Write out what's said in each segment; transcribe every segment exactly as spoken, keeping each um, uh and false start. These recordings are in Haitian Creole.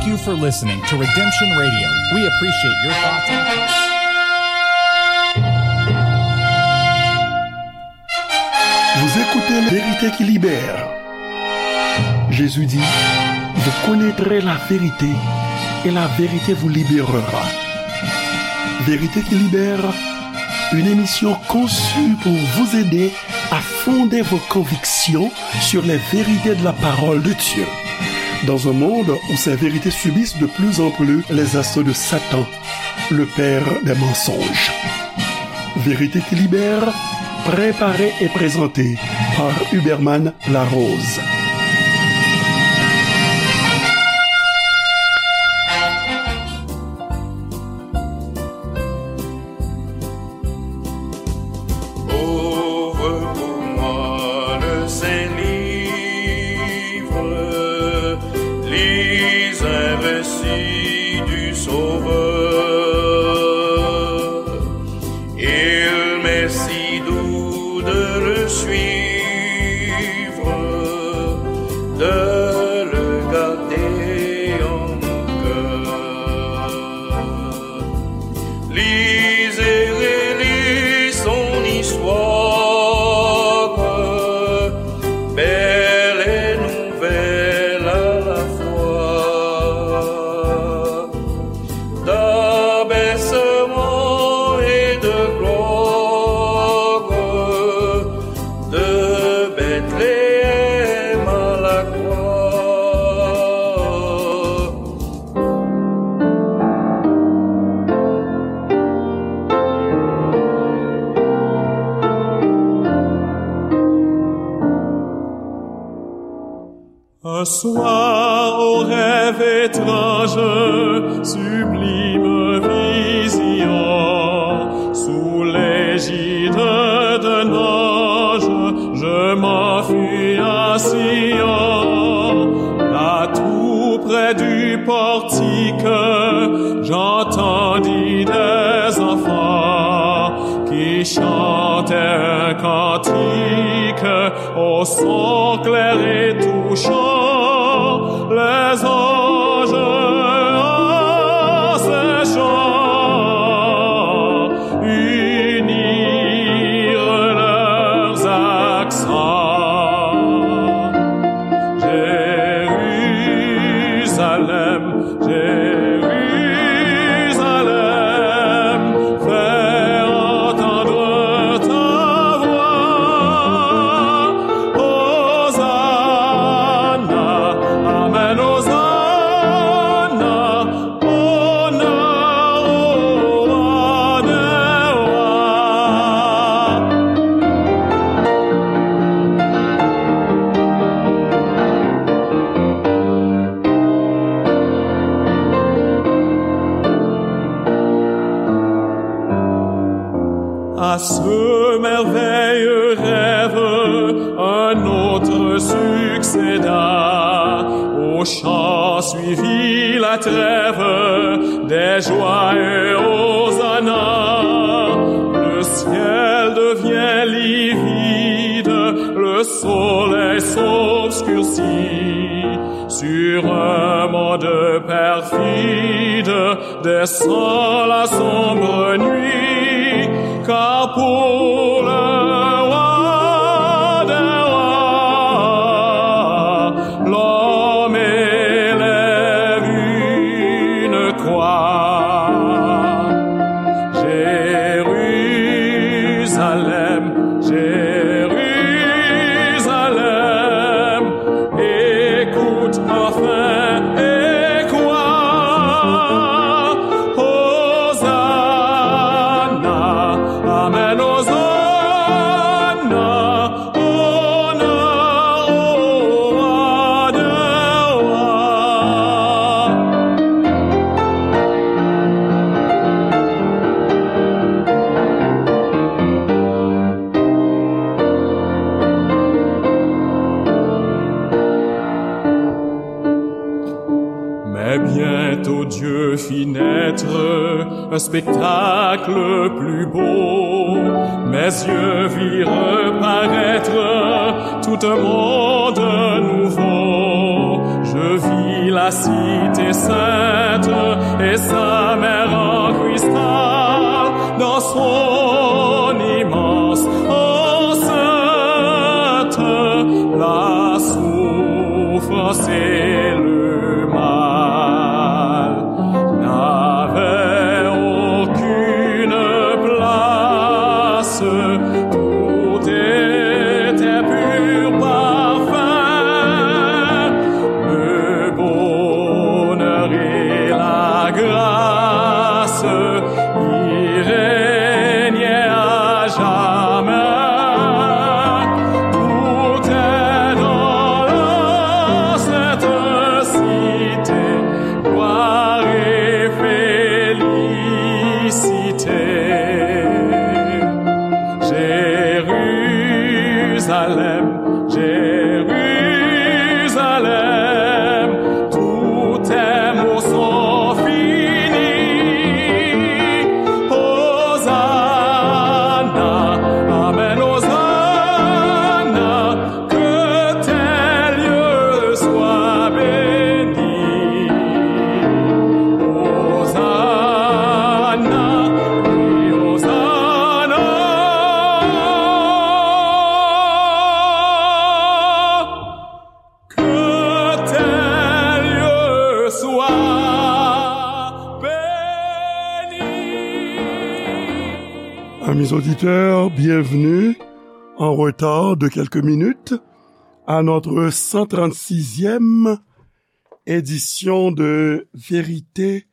Thank you for listening to Redemption Radio. We appreciate your thoughts and comments. Vous écoutez La Vérité qui libère. Jésus dit, vous connaîtrez la vérité et la vérité vous libérera. Vérité qui libère, une émission conçue pour vous aider à fonder vos convictions sur les vérités de la parole de Dieu. Dans un monde où ces vérités subissent de plus en plus les assauts de Satan, le père des mensonges. Vérité qui libère, préparée et présentée par Huberman Larose. Ouvre pour moi le saint livre, lis un récit du Sauveur. Il m'est si doux de le suivre, de le garder en mon cœur. Lisez, relisez son histoire, belle et nouvelle à la fois. D'abaissement et de gloire, de Bethléem à la croix. Un soir, au rêve étrange, sublime vision, sous l'égide d'un ange, je m'enfuis à Sion. Là, tout près du portique, j'entendis des enfants qui chantaient un cantique au son clair et touchant, les anges en ces chants unirent leurs accents. Jérusalem, Jérusalem, fais entendre ta voix. Hosanna, Amen, Hosanna, honneur au roi des rois. À ce merveilleux rêve, un autre succéda. Au chant suivit la trêve, des joyeux hosanna. Le ciel devient livide, le soleil s'obscurcit. Sur un monde perfide descend la sombre nuit, car pour le roi des rois, l'homme élève une croix. Jérusalem, Jérusalem, écoute enfin et crois. Hosanna, Amen, Hosanna, honneur au roi des rois. Mais bientôt Dieu fit naître un spectacle plus beau. Mes yeux virent paraître tout un monde nouveau. Je vis La cité sainte et sa mer en cristal, dans son immense enceinte, la souffrance et le mal n'avaient aucune place. Tout était pur parfum, le bonheur et la grâce y régnaient à jamais. Tout est dans la sainte cité, gloire et félicité. Jérusalem, Jérusalem, tous tes maux sont finis. Hosanna, amen, Hosanna, que tes lieux soient bénis. Hosanna, oui, Hosanna. Que tes lieux soient bénis. Amis auditeurs, bienvenue en retard de quelques minutes à notre cent trente-sixième édition de Vérité,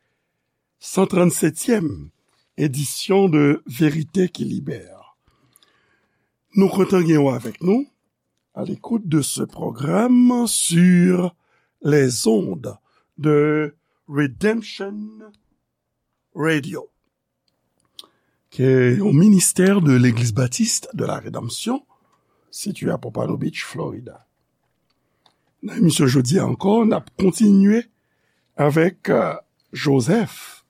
cent trente-septième édition de Vérité qui Libère. Nou kontan gen w avèk nou à l'écoute de ce programme sur les ondes de Redemption Radio, ki se yon ministè de Legliz Batis de la Redanmsyon, sitiye a Pompano Beach, Florida. Nan emisyon jodi a ankò, n ap kontinye avèk, euh, Joseph,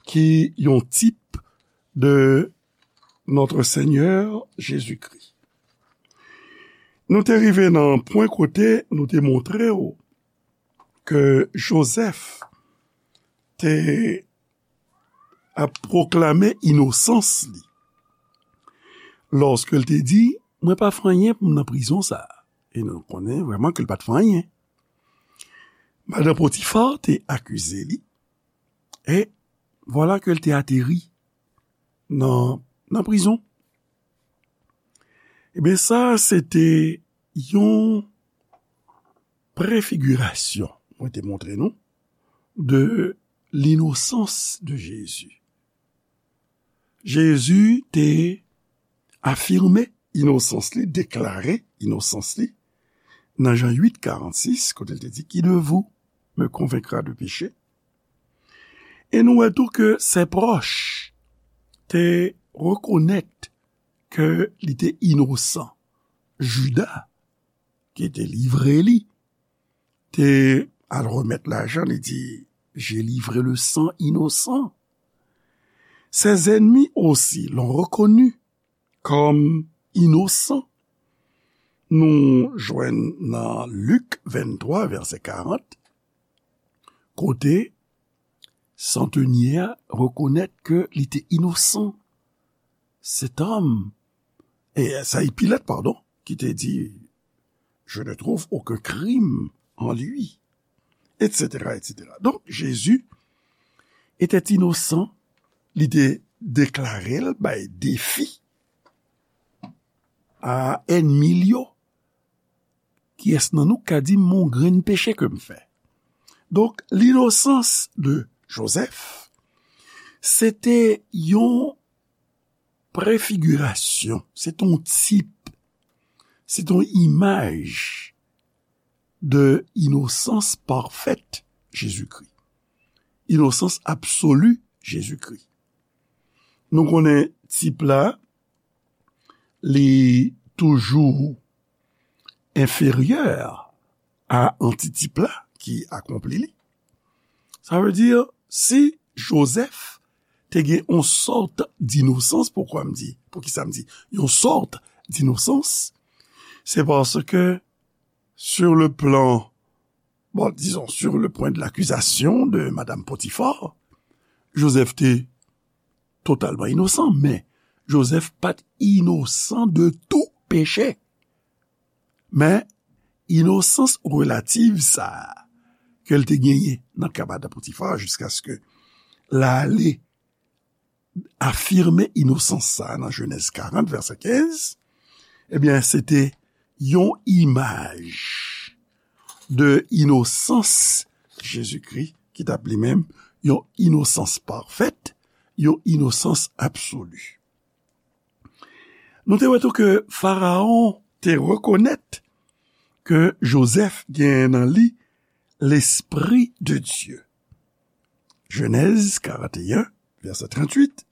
ki yon tip de Notre Seigneur Jésus-Christ. Nou te rive nan pwen kote nou te montre w ke Joseph te ap pwoklame inosans li. Lòske l te di, "Mwen pa fè anyen pou m nan prizon sa a." E nou konnen vrèman ke l pa t fè anyen. Madan Potifa te akize li, e vwala ke l te ateri nan, nan prizon. Ebyen, sa, se te yon prefigirasyon, mwen te montre nou, de l'innocence de Jésus. Jezi te afime inosans li, deklare inosans li, nan Jan uit, karannsis, kote l te di, "Qui de vous me convaincra de péché?" E nou wè tou ke ses proches te rekonèt ke li te inosan. Jida, ki te livre li, te al remèt lajan, li di, "J'ai livré le sang innocent." Ses ennemis aussi l'ont reconnu comme innocent. Nou jwenn nan Lik venntwa, vèsè karant, kote santenye a rekonèt ke li te inosan. Cet homme, e sa e Pilat, padon, ki te di, "Je ne trouve aucun crime en lui," et cetera, et cetera. Donk, Jezi etè inosan, li te deklare l bay defi a ènmi l yo. Kiyès nan nou ka di m yon grenn peche ke m fè? Donk, l'innocence de Joseph, se te yon prefigirasyon, se te yon tip, se te yon imaj de inosans pafèt Jezikri. Inosans absoli Jezikri. Nou konnen tip la, li toujou enferyè a antitip la ki akonpli li. Sa vle di, si Jozèf te gen yon sòt d'innocence, poukwa m di, poukisa m di yon sòt d'innocence? Se paske, sur le plan Bon, disons, sur le point de l'accusation de Madame Potiphar, Joseph te totalman inosan, men Joseph pa t inosan de tou peche. Men inosans relativ sa a ke l te genyen nan ka madanm Potifar, jiskaske l ale afime inosans sa a nan Jenèz karant, vèsè kenz, ebyen, se te yon imaj de inosans Jezikri, ki t ap li menm yon inosans pafèt, yon inosans absoli. Nou te wè tou ke Farawon te rekonèt ke Jozèf gen nan li Lespri de Dye. Jenèz karanteyen, vèsè tranntuit.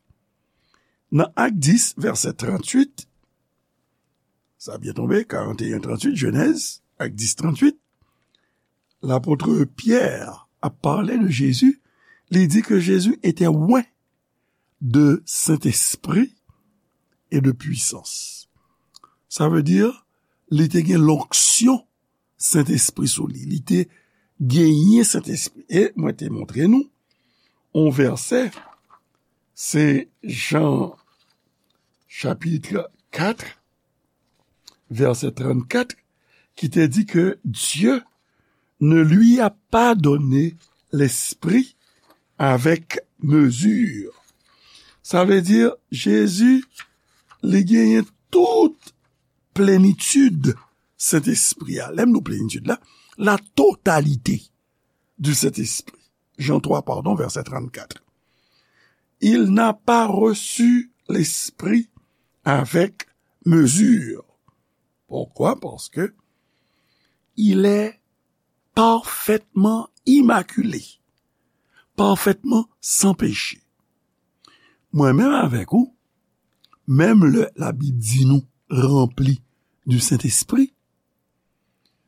Nan Ak dis, vèsè tranntuit, sa byen tonbe, karanteyen tranntuit, Jenèz, Ak dis tranntuit, lapot Pyè ap pale de Jezi, li di ke Jezi était oint de Sentespri e de pwisans. Sa vle di, li te gen lonksyon Sentespri sou li. Li te genyen Sentespri. E mwen te montre nou yon vèsè, se Jan chapit kat, vèsè trannkat, ki te di ke Dieu ne lui a pas donné l'esprit avec mesure. Sa vle di, Jezi, li genyen tout plenitid Sentespri a. Lè m di plenitid la, la totalité du Saint-Esprit. Jean trois, pardon, vèsè trannkat. Il n'a pas reçu l'esprit avec mesure. Pourquoi? Parce que il est parfaitement immaculé, parfaitement sans péché. Mwen menm avèk ou, menm lè Labib di nou ranpli du Saint-Esprit,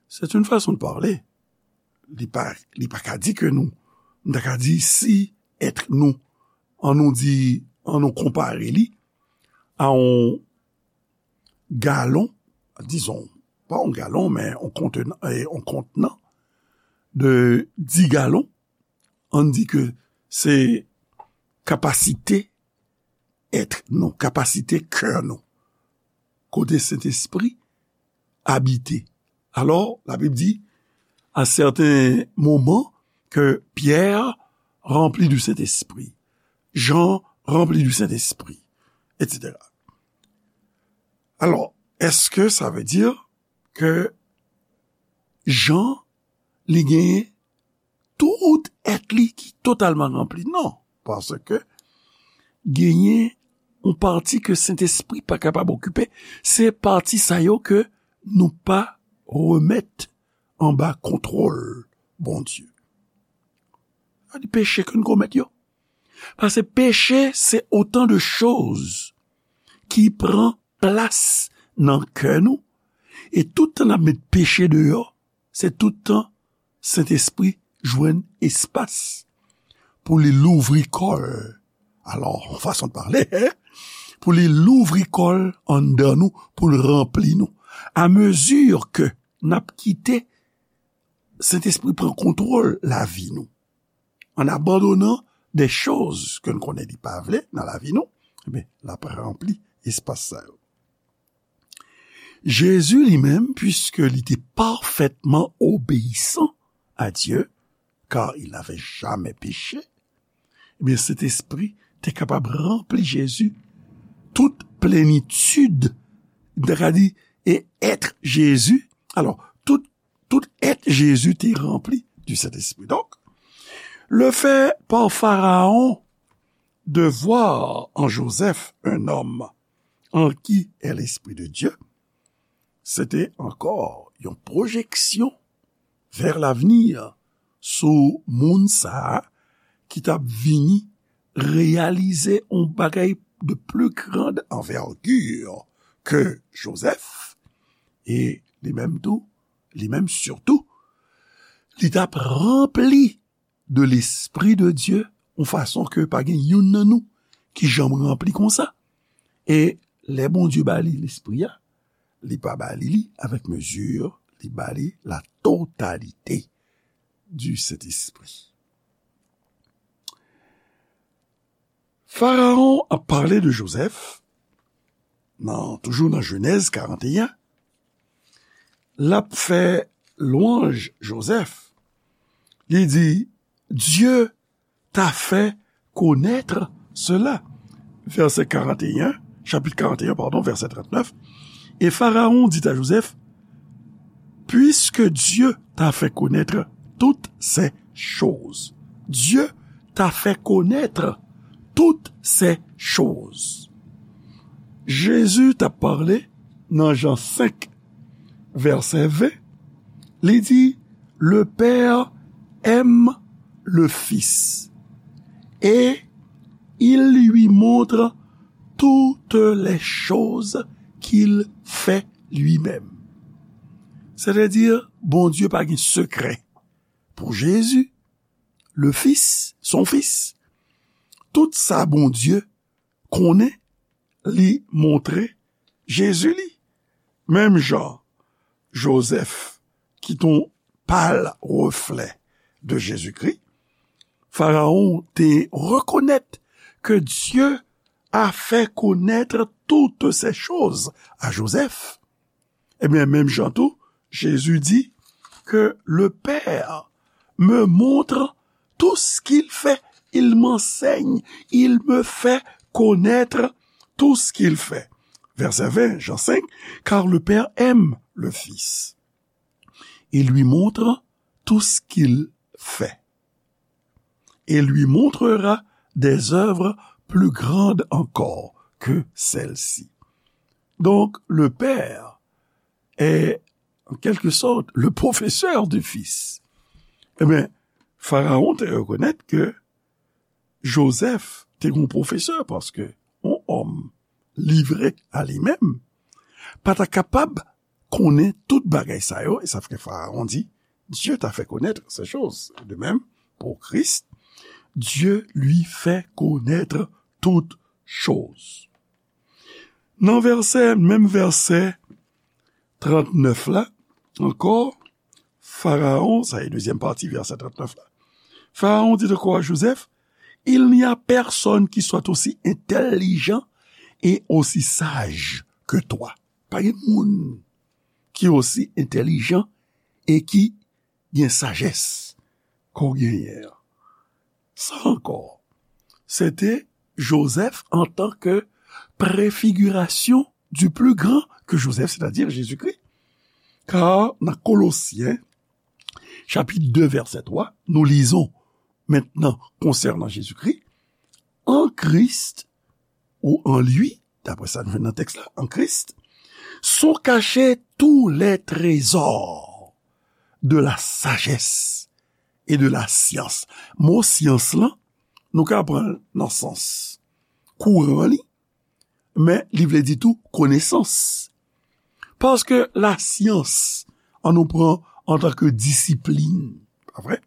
c'est une façon de parler. Li pa, li pa ka di ke nou, m ta ka di si èt nou, an nou di, an nou konpare li a yon galon, dizon, pa yon galon, men yon kontenan, eh, yon kontenan de dis galon, an di ke se kapasite èt nou, kapasite kè nou, kote Sentespri abite. Alò, Labib di, à certains moments, que Pierre rempli du Saint-Esprit, Jean rempli du Saint-Esprit, et cetera. Alò, èske sa vle di ke Jan, li genyen tout èt li ki totalman ranpli? Non, paske genyen yon pati ke Sentespri pa kapab okipe, se pati sa yo ke nou pa remèt anba kontwòl Bondye. Sa di peche ke n komèt yo. Paske peche, se otan de choz ki pran plas nan kè nou, e tout tan n ap met peche deyò, se tout tan Sentespri jwenn espas pou li louvri kò l. Alò, yon fason de pale, hein? Pou li louvri kò l anndan nou, pou l ranpli nou. A mezi ke n ap kite Sentespri pran kontwòl lavi nou, an abandonan de choz ke n konnen li pa vle nan lavi nou, ebyen, l ap ranpli espas sa yo. Jezi li menm, puiske li te parfètman obeyisan a Dye, car il n'avait jamais péché, ebyen, Sentespri te kapab ranpli Jezi, tout plenitid, m ta ka di, e èt Jezi. Alò, tout, tout èt Jezi te ranpli du Saint-Esprit. Donc, le fait par Pharaon de voir en Joseph un homme en qui est l'Esprit de Dieu, se te ankò yon pwojeksyon vers l'avenir sou moun sa a ki t ap vini reyalize yon bagay de plus grande envergure que Joseph, e li menm tou, li menm sitou, li t ap ranpli de Lespri de Dye, yon fason ke pa gen youn nan nou ki janm ranpli konsa. E lè Bondye ba li Lespri a, li pa ba li li avèk mezi, li ba li la totalité. du Saint-Esprit. Farawon ap pale de Jozèf, nan, toujou nan Jenèz karant e en, l ap fè lwanj Jozèf. Li di, Dieu t'a fait connaître cela. Vèsè karant e en, chapit karant e en, padon, vèsè trant nèf. Et Pharaon dit à Joseph, Puisque Dieu t'a fait connaître toutes ces choses. Dieu t'a fait connaître toutes ces choses. Jezi t ap pale nan Jan senk, vèsè ven, li di, Le Père aime le Fils et il lui montre toutes les choses qu'il fait lui-même. Sètadi, Bondye pa gen sekrè. Pou Jezi, le Fils, son Fils, tout sa Bondye konnen, li montre Jezi li. Menm jan Jozèf ki t on pâle reflet de Jésus-Christ, Farawon te rekonèt que Dieu a fait connaître toutes ces choses à Joseph. Ebyen, menm jan tou, Jezi di que le Père me montre tout ce qu'il fait, il m'enseigne, il me fait connaître tout ce qu'il fait. Vèsè ven, Jan senk, Car le Père aime le Fils et lui montre tout ce qu'il fait. Et lui montrera des œuvres plus grandes encore que celles-ci. Donc, le Père est, en quelque sorte, le professeur du Fils. Ebyen, Farawon te rekonèt ke Jozèf te gen yon pwofesè, paske yon òm livre a li menm pa ta kapab konnen tout bagay sa yo, e sa fè Farawon di, Dieu t'a fait connaître ces choses. De même, pour Christ, Dieu lui fait connaître toutes choses. Nan vèsè, menm vèsè trant nèf la, ankò, Farawon, sa e dezyèm pati vèsè trant nèf la. Farawon dit encore à Joseph, Il n'y a personne qui soit aussi intelligent et aussi sage que toi. Pa gen moun ki osi entèlijan e ki gen sajès ke w genyen an. Sa ankò, se te Jozèf antanke préfiguration du plus grand que Joseph, c'est-à-dire Jésus-Christ. Car nan Kolosyen, chapit de, vèsè twa, nous lisons maintenant concernant Jésus-Christ, En Christ, ou en lui, d'après ça nous dans le texte là, en Christ, sont cachés tous les trésors de la sagesse et de la science. Mo syans lan, nou ka pran nan sans kouran li, men li vle di tou konesans. Paske lasyans, an nou pran antanke disiplin, pa vre?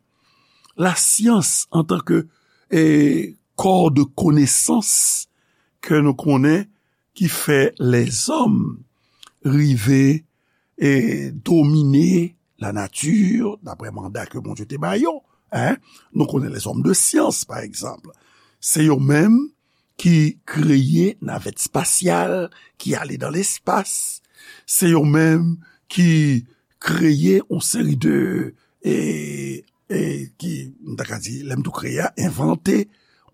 Lasyans antanke, e, kò de konesans ke nou konnen ki fè lèzòm rive e domine lanati, daprè manda ke Bondye te ba yo. Hein? Nou konnen lèzòm de syans, pa egzanp. Se yo menm ki kreye navèt espasyal ki ale dan lespas. Se yo menm ki kreye yon seri de, e, e, ki, m ta ka di, lè m tou kreye a, envante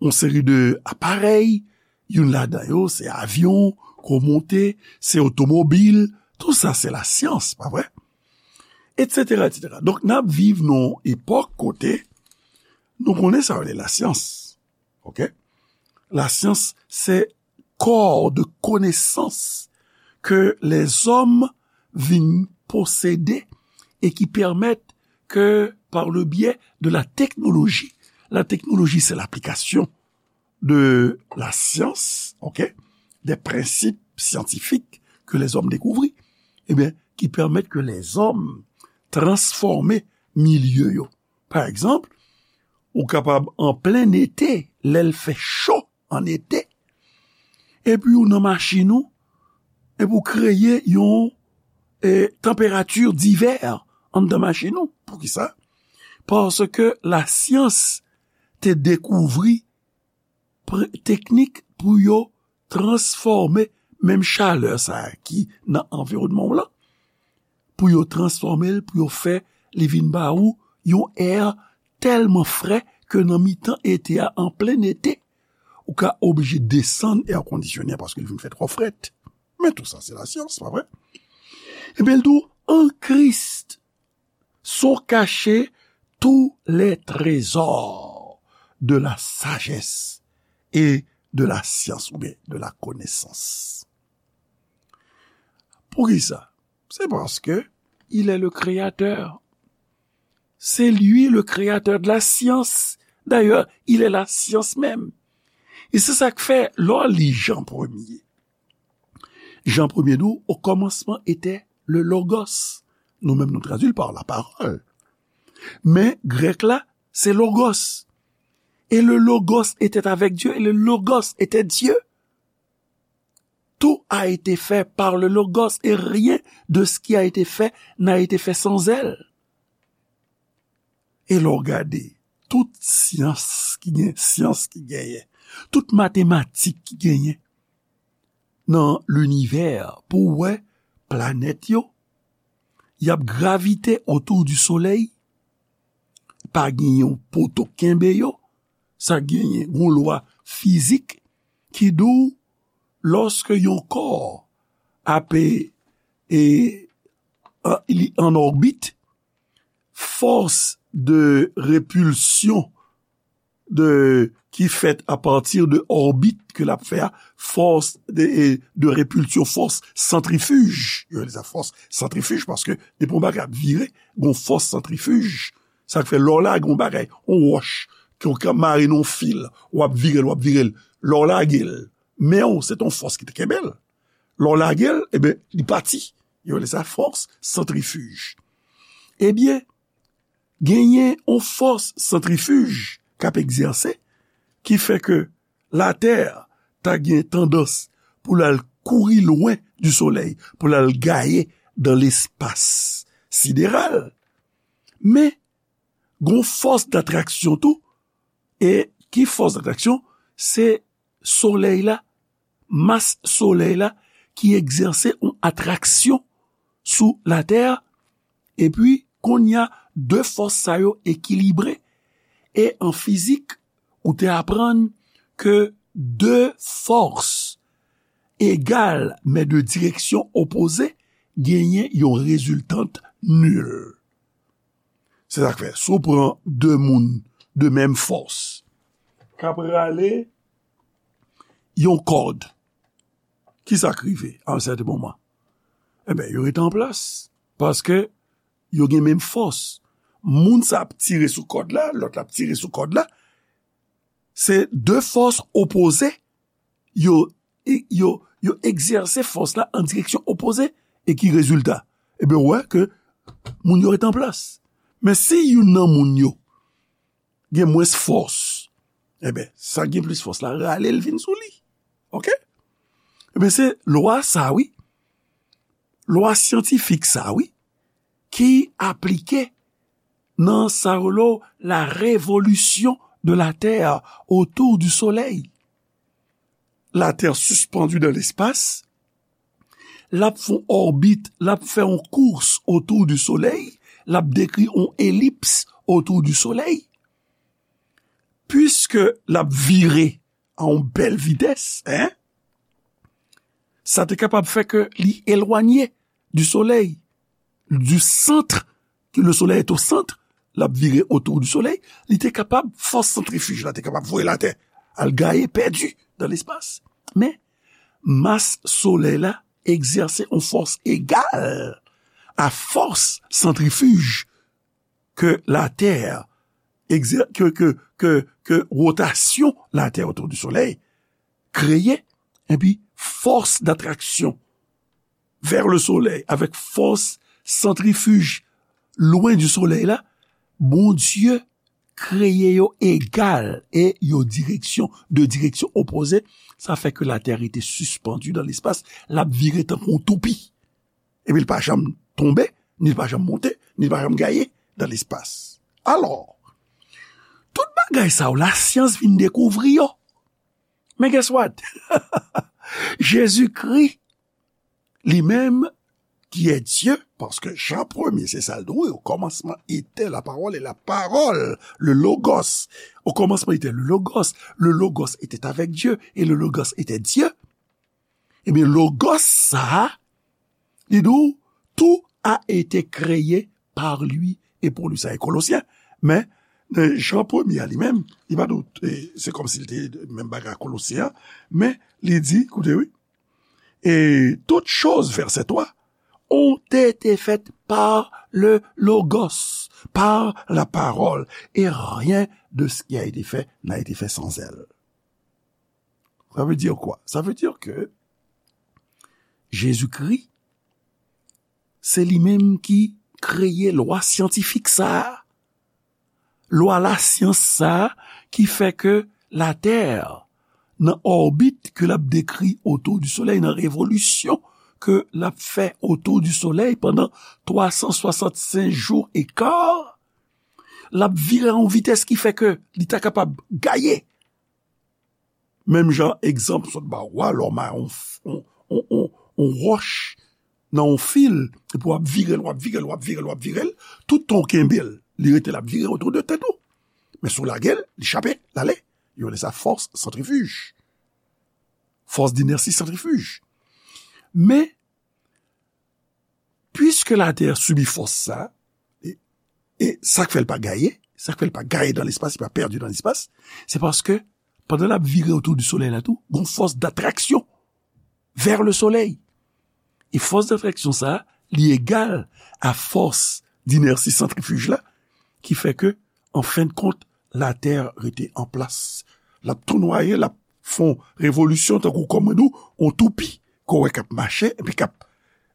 yon seri de aparèy. Youn ladan yo, se avyon, ke w monte, se otomobil, tou sa se lasyans, pa vre? Etsetera, etsetera. Donk, n ap viv nan yon epòk kote nou konnen sa yo rele lasyans. Oke? Lasyans, se kò de konesans ke lèzòm vin posede e ki pèmèt ke, par le biais de la technologie, la technologie, c'est l'application de la science, ok, des principes scientifiques que les hommes découvrirent, ebyen, ki pèmèt ke lèzòm transfòme milye yo. Pa egzanp, ou kapab an plen ete, lè l fè cho an ete, epi ou nan machin ou, epi ou kreye yon, e, tanperati divè anndan machin ou. Poukisa? paske lasyans te dekouvri pre- teknik pou yo transfòme menm chalè sa a ki nan anviwònman w lan, pou yo transfòme l, pou yo fè li vin ba ou yon è tèlman frè ke nan mitan ete a, an plen ete, ou ka oblije desann èkondisyonnen an paske l vin fè twò frèt. Men tou sa, se lasyans, pa vre? Ebyen, l di w, en Christ sont cachés tous les trésors de la sagesse et de la science, oubyen de la connaissance. Poukisa? C'est parce que il est le créateur. C'est lui le créateur de la science. D'ailleurs, il est la science même. E se sa k fè, lè w li Jan premye, Jan premye di w, au commencement était le Logos. Nou menm, nou tradui l pa la parole. Men grèk la, se Logos. Et le Logos était avec Dieu, et le Logos était Dieu. Tout a été fait par le Logos, et rien de ce qui a été fait n'a été fait sans elle. E lè w gade, tout syans ki gen, syans ki genyen, tout matematik ki genyen nan linivè, pou w wè planèt yo, y ap gravite otou di solèy, pa gen yon poto kenbe yo, sa genyen yon lwa fizik ki di w, lòske yon kò ap, e, e, an, li an òbit, fòs de repilsyon de, ki fèt apati de òbit ke l ap fè a, fòs de, e, de repilsyon, fòs santrifij. Yo rele sa fòs santrifij paske depi yon bagay ap vire, gon fòs santrifij. Sa k fè lè w lage yon bagay, yon wòch, ke w ka mare nan yon fil, w ap vire l, w ap vire l. Lè w lage l, men w, se t on fòs ki te kenbe l. Lè w lage l, ebyen, li pati. Yo rele sa fòs santrifij. Ebyen, genyen yon fòs santrifij k ap egzèse, ki fè ke Latè ta gen tandans pou l al kouri lwen di solèy, pou l al gaye dan lespas sidéral. Men, gon fòs datraksyon tou, e ki fòs datraksyon? Se solèy la, mas solèy la ki egzèse yon atraksyon sou Latè, epi kounye a, de fòs sa yo ekilibre. E an fizik, ou te aprann ke de fòs egal, men de direksyon opoze, genyen yon reziltant nil. Se sa k fè, si w pran de moun de menm fòs, k ap rale yon kòd, ki sa k rive a yon sèten moman? Ebyen, yo rete an plas, paske yo gen menm fòs. Moun sa ap tire sou kòd la, lòt la ap tire sou kòd la, se de fòs opoze, yo, yo, yo egzèse fòs la an direksyon opoze, e ki rezilta? Ebyen, ou wè ke moun yo rete an plas. Men si youn nan moun yo gen mwens fòs, ebyen, sa gen plis fòs la rale l vin sou li. Oke? Ebyen, se lwa sa, wi. Lwa syantifik sa, wi, ki aplike nan sa yo rele la révolution de la Terre autour du Soleil. Latè sispann dan lespas, l ap fè yon òbit, l ap fè yon kous otou di Solèy, l ap dekri yon elips otou di Solèy. Piske l ap vire a yon bèl vitès, en, sa te kapab fè ke li elwanye di Solèy, du centre, que le Soleil est au centre, l ap vire otou di Solèy, li te kapab, fòs santrifij la te kapab voye Latè al gaye, pèdi dan lespas. Men, mas Solèy la egzèse yon fòs egal a fòs santrifij ke Latè egzè-, ke, ke, ke, ke wotasyon Latè otou di Solèy kreye, epi fòs datraksyon vers le Soleil avèk fòs santrifij lwen di Solèy la, Bondye kreye yo egal e yo direksyon, de direksyon opoze. Sa fè ke Latè rete sispann dan lespas, l ap vire tankou yon toupi. Epi l pa janm tonbe, ni l pa janm monte, ni l pa janm gaye dan lespas. Alò, tout bagay sa yo, lasyans vin dekouvri yo. Men guess what? Jezikri, li menm, ki est Dieu, paske Jan premye, se sa l di, wi, au commencement était la parole, et la parole, le logos. Au commencement était le logos, le logos était avec Dieu, et le logos était Dieu. Ebyen, logos sa a, li di w, tout a été créé par lui et pour lui. Sa e Kolosyen. Men, nan Jan premye a li menm, li pa di w, e, se kòmsi li te menm bagay a Kolosyen an, men li di, koute, wi, et toutes choses, verset trois, ont été faites par le logos, par la parole, et rien de ce qui a été fait n'a été fait sans elle. Ça veut dire quoi? Ça veut dire que Jezikri, se li menm ki kreye lwa syantifik sa a. Lwa lasyans sa a ki fè ke Latè, nan òbit ke l ap dekri otou di Solèy, nan revolisyon ke l ap fè otou di Solèy pandan twa san swasannsenk jou e ka, l ap vire a yon vitès ki fè ke li ta kapab gaye. Menm jan egzanp sot ba w a, lè w mare yon, yon, yon, yon, yon wòch nan yon fil, epi w ap vire l, w ap vire l, w ap vire l, w ap vire l, tout tan w kenbe l, li rete l ap vire otou de tèt ou. Men si w lage l, li chape, l ale. Yo rele sa fòs santrifij. Fòs d'inersi santrifij. Men, piske Latè sibi fòs sa, e, e sa k fè l pa gaye, sa k fè l pa gaye dan lespas, li pa pèdi dan lespas, se paske pandan l ap vire otou di Solèy la tou, gon fòs d'atraksyon vers le soleil. E fòs d'atraksyon sa a, li egal a fòs d'inersi santrifij la, ki fè ke, an fen de kont, Latè rete an plas. L ap tou nwaye, l ap fè yon revolisyon tankou kòm mwen di w, yon toupi, ke w wè k ap mache, epi k ap,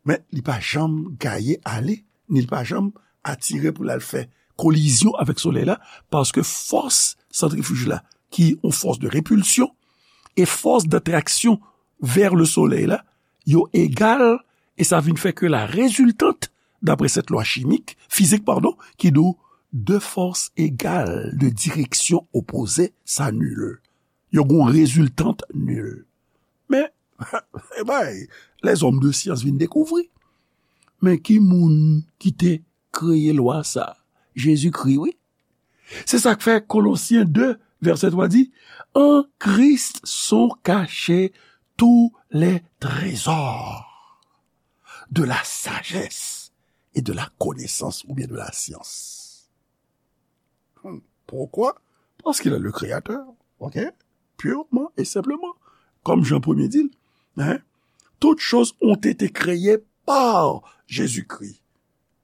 men li pa janm gaye ale, ni li pa janm atire pou l al fè kolizyon avèk Solèy la, paske fòs santrifij la, ki yon fòs de repilsyon, e fòs d'atraksyon vers le soleil la, yo egal, e sa vin fè ke la résultante, d'après cette loi chimique, fizik, padon, ki di w, deux forces égales de direction opposée s'annulent. Yo gon reziltant nil. Men, e bay, lèzòm de syans vin dekouvri. Men ki moun ki te kreye lwa sa? Jezikri, wi. Se sa k fè Kolosyen de, vèsè twa di, En Christ sont cachés tous les trésors de la sagesse et de la connaissance, oubyen de la science. Hmm. Pourquoi? Parce qu'il est le créateur, ok? Purement et simplement. Comme Jean premier dit, hein? Toutes choses ont été créées par Jésus-Christ.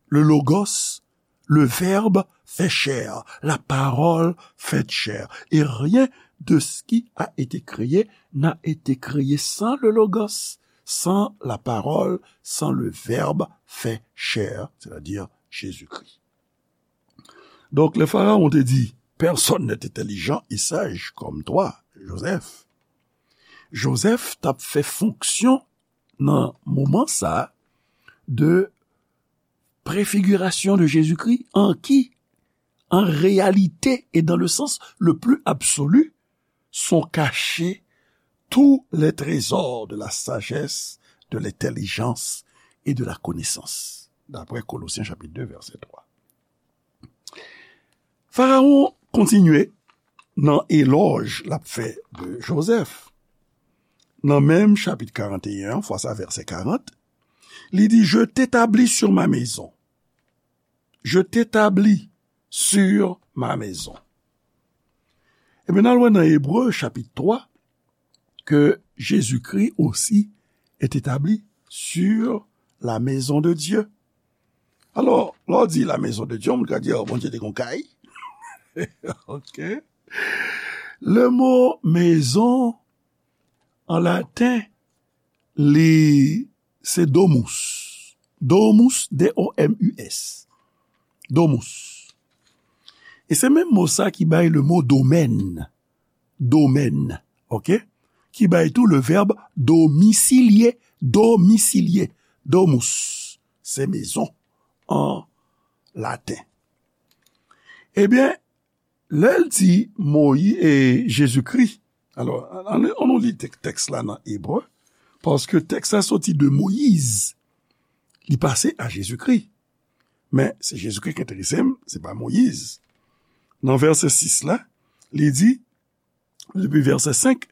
Le Logos, le Verbe fait chair, la parole faite chair. Et rien de ce qui a été créé n'a été créé sans le Logos, sans la parole, sans le Verbe fait chair, c'est-à-dire Jésus-Christ. Donk, lè Farawon te di, Personne n'est intelligent et sage comme toi, Joseph. Joseph t ap fè fonksyon nan moman sa a de préfiguration de Jésus-Christ, en qui, en réalité et dans le sens le plus absolu, sont cachés tous les trésors de la sagesse, de l'intelligence et de la connaissance. D'après Colossiens chapitre deux, verset trois. Farawon kontinye nan elòj l ap fè de Jozèf. Nan menm chapit karant e en an, fwa sa vèsè karant, li di, Je t'établis sur ma maison. Je t'établis sur ma maison. Ebyen, n al wè nan Ebre, chapit twa, ke Jezikri osi est établi sur la maison de Dieu. Alò, lè w di la maison de Dieu, moun ka di, oh, Bondye te gon kay. Ok. Le mo maison, an laten, li se domus. Domus, D O M U S. Domus. E se menm mo sa ki bay le mo domèn. Domèn. Ok? Ki bay tou le vèb domicilier. Domicilier. Domus. Se mezon an laten. Ebyen, lè l di Moyi-, e, Jezikri, alò, ann, ann nou li tèk-, tèks la nan Ebre, paske tèks la soti de Moyiz, li pase a Jezikri. Men, se Jezikri ki enterese m, se pa Moyiz. Nan vèsè sis la, li di, depi vèsè senk,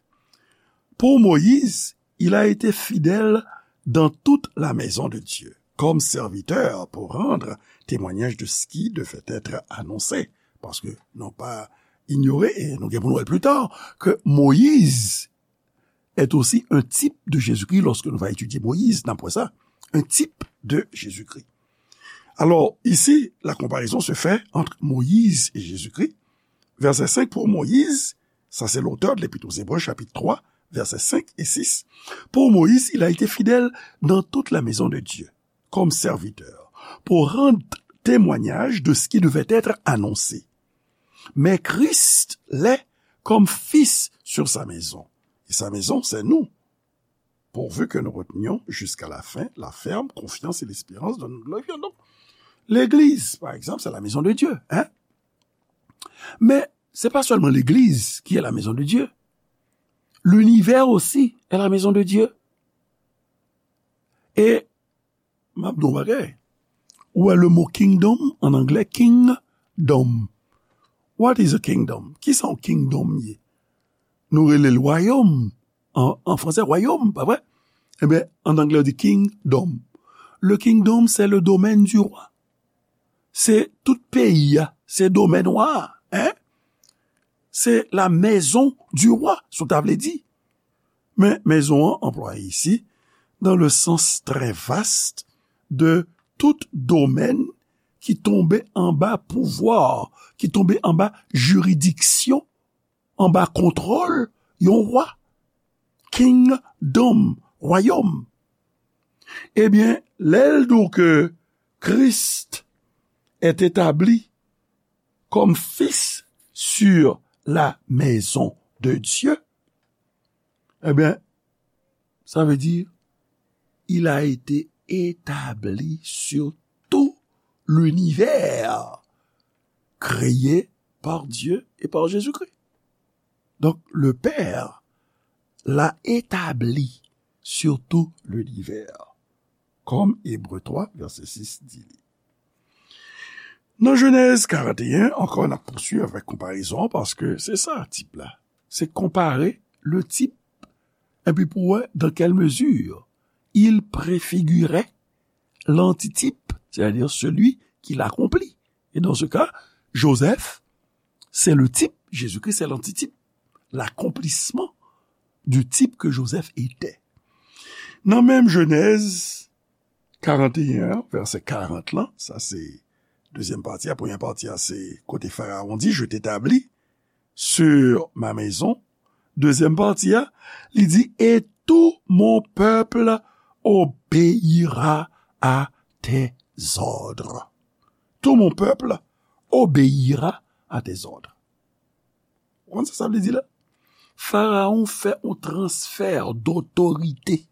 pour Moïse, il a été fidèle dans toute la maison de Dieu, comme serviteur pour rendre témoignage de ce qui devait être annoncé. Paske nou pa inyore, e nou gen pou nou wè l pli ta, ke Moyiz est aussi un type de Jésus-Christ lorsque nous va étudier Moïse, n ap wè sa, un type de Jésus-Christ. Alors, ici, la comparaison se fait entre Moïse et Jésus-Christ. Verset cinq, pour Moïse, ça c'est l'auteur de l'Épître aux Hébreux, chapitre trois, versets cinq et six. Pour Moïse, il a été fidèle dans toute la maison de Dieu, comme serviteur, pour rendre témoignage de ce qui devait être annoncé. Mais Christ l'est comme fils sur sa maison. Et sa maison, c'est nous. Pourvu que nous retenions jusqu'à la fin la ferme confiance et l'espérance dont nous glorifions. Donc, l'église, par exemple, c'est la maison de Dieu, hein? Mais c'est pas seulement l'église qui est la maison de Dieu. L'univers aussi est la maison de Dieu. E m ap di w bagay. Ou wè le mot kingdom, an anglè, kingdom. What is a kingdom? Kisa yon kingdom ye? Nou rele l wayòm. An, an fransè, wayòm, pa vre? Ebyen, an anglè, yo di kingdom. Le kingdom, c'est le domaine du roi. Se tout peyi a, se domèn wa a, hein? Se la maison du roi, si w ta vle di. Men, maison an anplwaye isi dans le sens très vaste de tout domaine ki tonbe anba pouvwa, ki tonbe anba jiridiksyon, anba kontwòl yon wa. Kingdom, wayòm. Ebyen, lè l di w ke Christ est établi comme fils sur la maison de Dieu, ebyen, sa vle di, il a été établi sur tout l'univers créé par Dieu et par Jésus-Christ. Donc, le Père l'a établi sur tout l'univers, comme Hébreux trois, verset six dit li. Nan Jenèz karant e en, ankò, n ap pouswiv avèk konparezon an, paske se sa, tip la. Se konpare le type, epi pou wè dans quelle mesure il préfigurait l'antitype, c'est-à-dire celui qui l'accomplit. Et dans ce cas, Joseph, c'est le type, Jésus-Christ, c'est l'antitype, l'accomplissement du type que Joseph était. Nan menm Jenèz karant e en an, vèsè karant lan, sa se dezyèm pati a, premyè pati a se kote Farawon di, je t'établis sur ma maison. Dezyèm pati a, li di, et tout mon peuple obéira à tes ordres. Tout mon peuple obéira à tes ordres. Ou konn sa sa vle di la? Farawon fè yon transfè dotorite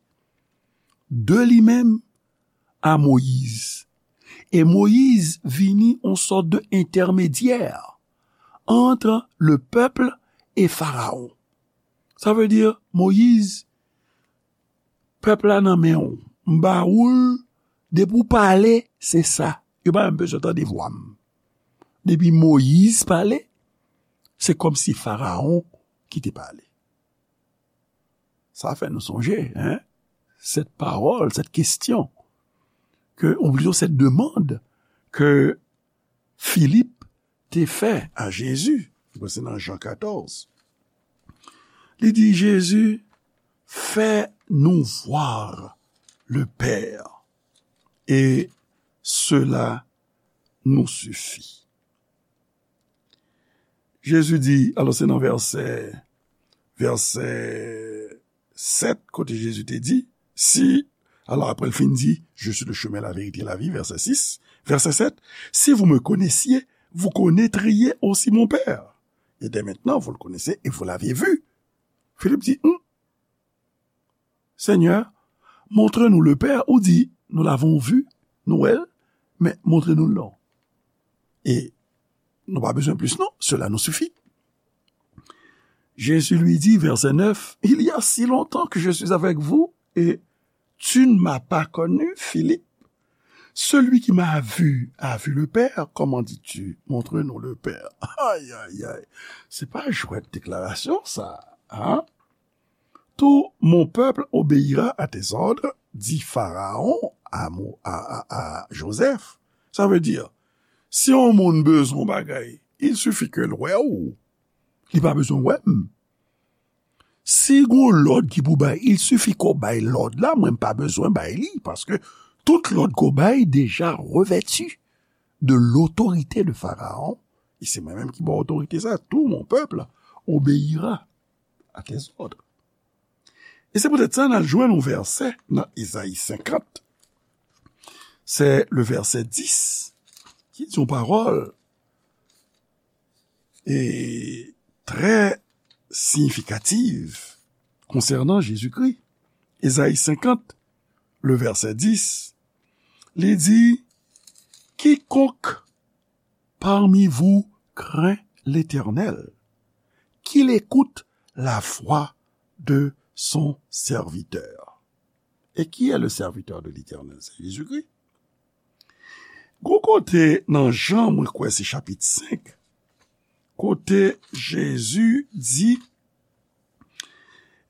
de li menm a Moyiz. E Moyiz vini yon sòt de entèmedyè ant le pèp e Farawon. Sa vle di, Moyiz, pèp la nan men w. M ba ou l, depi w pale, se sa. Yo pa menm bezwen tande vwa m. Depi Moyiz pale, se kòmsi Farawon ki te pale. Sa fè nou sonje, hein, cette parole, cette question, que, ou plito cette demande que Philippe te fè a Jezi, se nan Jan katòz. Li di, Jezi, fais-nous voir le Père, et cela nous suffit. Jezi di, alò se nan vèsè, vèsè sèt, kote Jezi te di, si, alò apre l fin di, je suis le chemin, la vérité, la vie, verset six, verset sept, si vous me connaissiez, vous connaîtriez aussi mon Père. Et dès maintenant, vous le connaissez et vous l'avez vu. Philippe dit, hmm, Seigneur, montre-nous le Père, ou di, nous l'avons vu, nou wè l, men montre nou l non. E Nou pa bezwen plis, non. Cela nous suffit. Jésus lui dit, verset neuf, il y a si longtemps que je suis avec vous et tu ne m'as pas connu, Philippe. Celui qui m'a vu a vu le Père. Comment dis-tu, montre-nous le Père? Ay, ay, ay. Se pa jwèt deklarasyon, sa. Hein? Tout mon peuple obéira à tes ordres, dit Pharaon à, Mo- à, à, à Joseph. Sa vle di, si yon moun bezwen yon bagay, il suffit ke l wè w. Li pa bezwen wè m. Si gon lòd ki pou bay, il suffit ke w bay lòd la, mwen m pa bezwen bay li, paske tout lòd ke w bay deja revèti de l'autorité de Pharaon, e se mwen menm ki ba w otorite sa, tout mon peuple obéira à tes ordres. E se poutèt sa, n al jwenn yon vèsè nan Ezayi senkant. Se le vèsè dis, ki di yon pawòl e trè siyifikatif konsènan Jezikri. Ezayi senkant, le vèsè dis, li di, quiconque parmi vous craint l'Éternel, qu'il écoute la voix de son serviteur. Et qui est le serviteur de l'Éternel? C'est Jésus-Christ. Gon kote nan Jan, mwen kwè se chapit senk, kote Jezi di,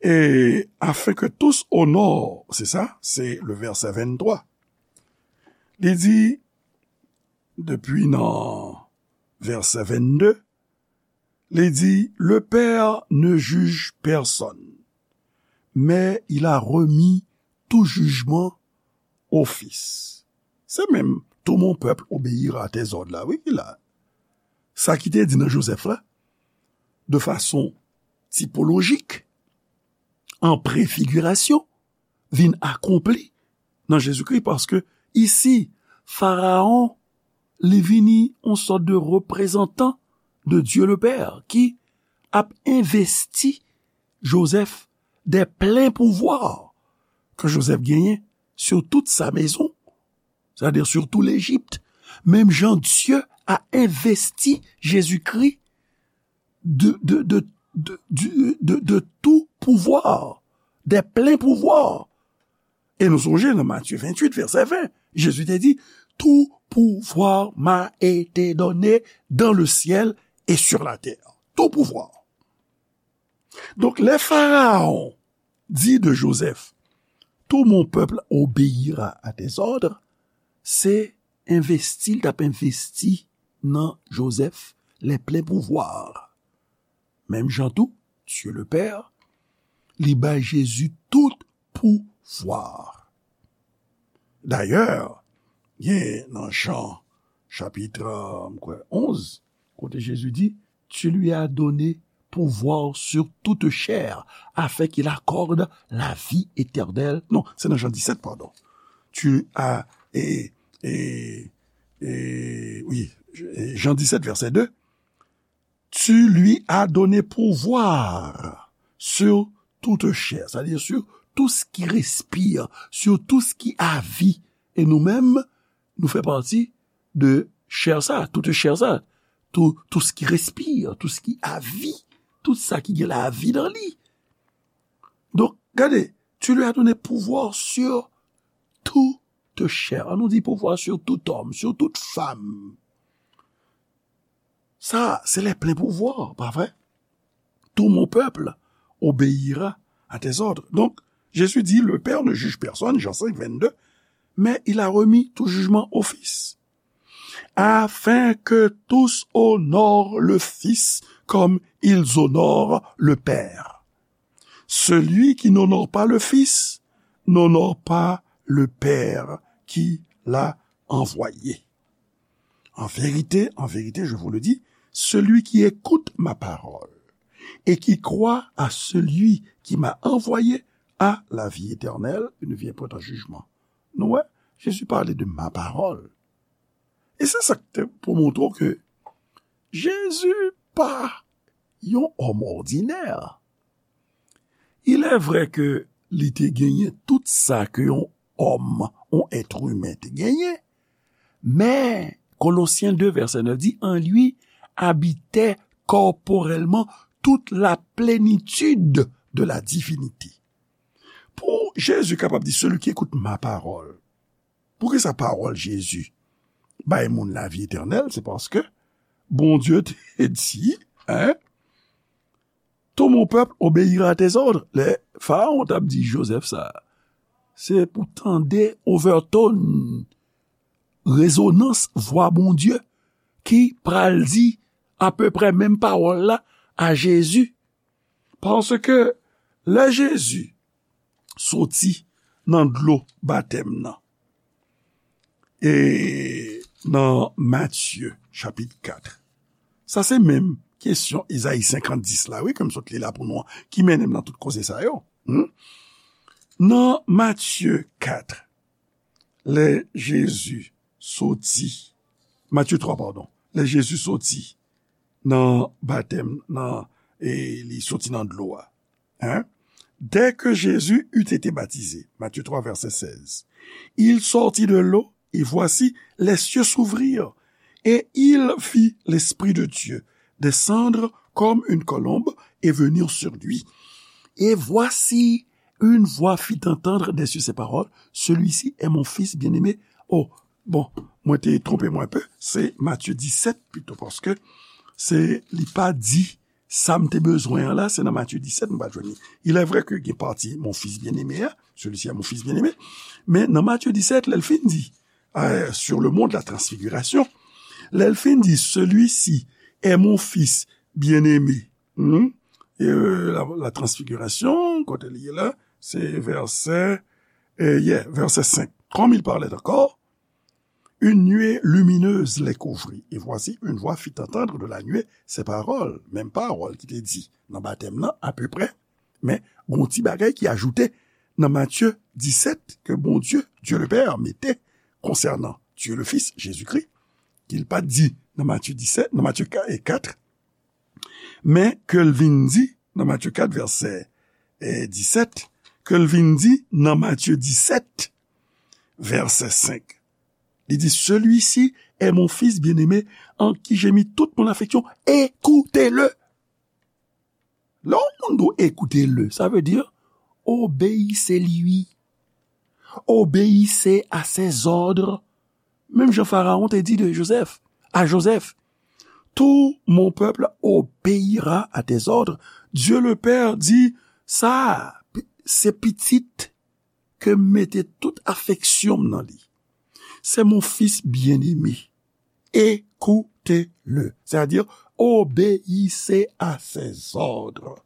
et afin que tous honorent, c'est ça, c'est le verset vingt-trois. Li di, depi nan vèsè vennde, li di, le Père ne juge personne, mais il a remis tout jugement au Fils. Se menm, tout mon peuple obéira à tes ordres la, wi, ki la. Sa ki te di nan Joseph la, de fason tipolojik, an prefigirasyon, vin akonpli nan Jezikri, paske isi, Faraon, li vini yon sòt de reprezantan de Dieu le Père ki ap envesti Joseph des pleins pouvoirs ke Joseph genyen sur toute sa maison, c'est-à-dire sur tout l'Égypte. Menm jan Dieu a investi Jésus-Christ de, de, de, de, du- de, de tout pouvoir, des pleins pouvoirs. E nou sonje nan Matye venntuit, vèsè ven, Jezi te di, tout pouvoir m'a été donné dans le ciel et sur la terre. Tout pouvoir. Donk, lè Faraon di de Joseph, tout mon peuple obéira à tes ordres, se envesti, l t ap envesti nan Joseph les pleins pouvoirs. Menm jan tou, Dieu le Père, li bay Jezi tout pouvwa. Dayè, gen nan Jan, chapit, euh, m kwè, onz, kote Jezi di, tu lui as donné pouvoir sur toute chair, afin qu'il accorde la vie éternelle. Non, se nan Jan disèt, padon. Tu as, e, e, e, wi, Jan disèt, vèsè de. Tu lui as donné pouvoir sur toute chair, c'est-à-dire sur tout ce qui respire, sur tout ce qui a vie. E nou menm, nou fè pati de chè sa, tout chè sa, tout, tout ce qui respire, tout ce qui a vie, tout sa ki gen lavi nan li. Donk, gade, tu lui as donné pouvoir sur toute chair. An nou di pouvoir sur tout homme, sur toute femme. Sa, se les pleins pouvoirs, pa vre? Tout mon peuple obéira à tes ordres. Donc, Jésus dit, le Père ne juge personne, Jean cinq, vingt-deux, mais il a remis tout jugement au Fils, afin que tous honorent le Fils comme ils honorent le Père. Celui qui n'honore pas le Fils n'honore pas le Père qui l'a envoyé. En vérité, en vérité, je vous le dis, celui qui écoute ma parole et qui croit à celui qui m'a envoyé a la vie éternelle, il ne vient point en jugement. Nou wè, Jezi pale de ma parole. E se sa k te pou montre w ke Jezi pa yon òm òdinè. Il est vrai ke li te genyen tout sa ke yon òm, yon èt imen te genyen, men Kolosyen de vèsè nèf di, en lui habitait corporellement toute la plénitude de la divinité. Pou Jezi kapab di, celui qui écoute ma parole. Poukisa pawòl Jezi bay moun lavi etènèl? Se paske Bondye te di, hein, tout mon peuple obéira à tes ordres. Lè Farawon t ap di Jozèf sa, se pou tande overtone, rezonans vwa Bondye ki pral di apeprè menm pawòl la a Jezi. Paske lè Jezi soti nan dlo batèm nan, e nan Matye chapit kat, sa se menm kesyon Ezayi senkant dis la, wi, ke m sot li la pou nou an, ki mennen m nan tout koze sa yo. Hmm? Nan Matye kat, lè Jezi soti, Matye twa, padon, lè Jezi soti nan batèm, nan, e li soti nan dlo a. Hein? Dès que Jésus eut été baptisé, Matthieu trois, verset seize, il sortit de l'eau, et voici, les cieux s'ouvrirent, et il vit l'Esprit de Dieu descendre comme une colombe et venir sur lui. Et voici, une voix fit entendre des cieux ces paroles, celui-ci est mon fils bien-aimé. Oh, bon, mwen te twonpe mwen enpe, se Matye disèt pito, paske se, li pa di sa m te bezwen an la, se nan Matye disèt m pa jwenn li. Il est vrai que gen pati mon fils bien-aimé a, celui-ci est mon fils bien-aimé, men nan Matye disèt, lè l fin di, euh, sur le mont de la transfiguration, lè l fin di, celui-ci est mon fils bien-aimé, hmm? E, euh, la, la transfiguration, kote li ye la, se vèsè, euh, yeah, vèsè senk. Comme il parlait encore, une nuée lumineuse les couvrit. Et voici, une voix fit entendre de la nuée ces paroles. Menm pawòl ki te di nan batèm nan, apeprè. Men, gon ti bagay ki ajoute nan Matye disèt ke Bondye, Dieu le Père, mete konsènan Dieu le Fils, Jezikri, ki l pa t di nan Matye disèt, nan Matye kat, men ke l vin di nan Matye kat, vèsè, eh, disèt, ke l vin di nan Matye disèt, vèsè senk. Li di, celui-ci est mon fils bien-aimé, en qui j'ai mis toute mon affection, écoutez-le. Lè yon moun di w écoutez-le, sa vle di, obéissez-lui. Obéissez à ses ordres. Menm jan Farawon te di de Jozèf, a Jozèf, tout mon peuple obéira à tes ordres. Dieu le Père di, sa, se pitit ke m mete tout afeksyon m nan li. C'est mon fils bien-aimé. Écoutez-le. C'est-à-dire, obéissez à ses ordres.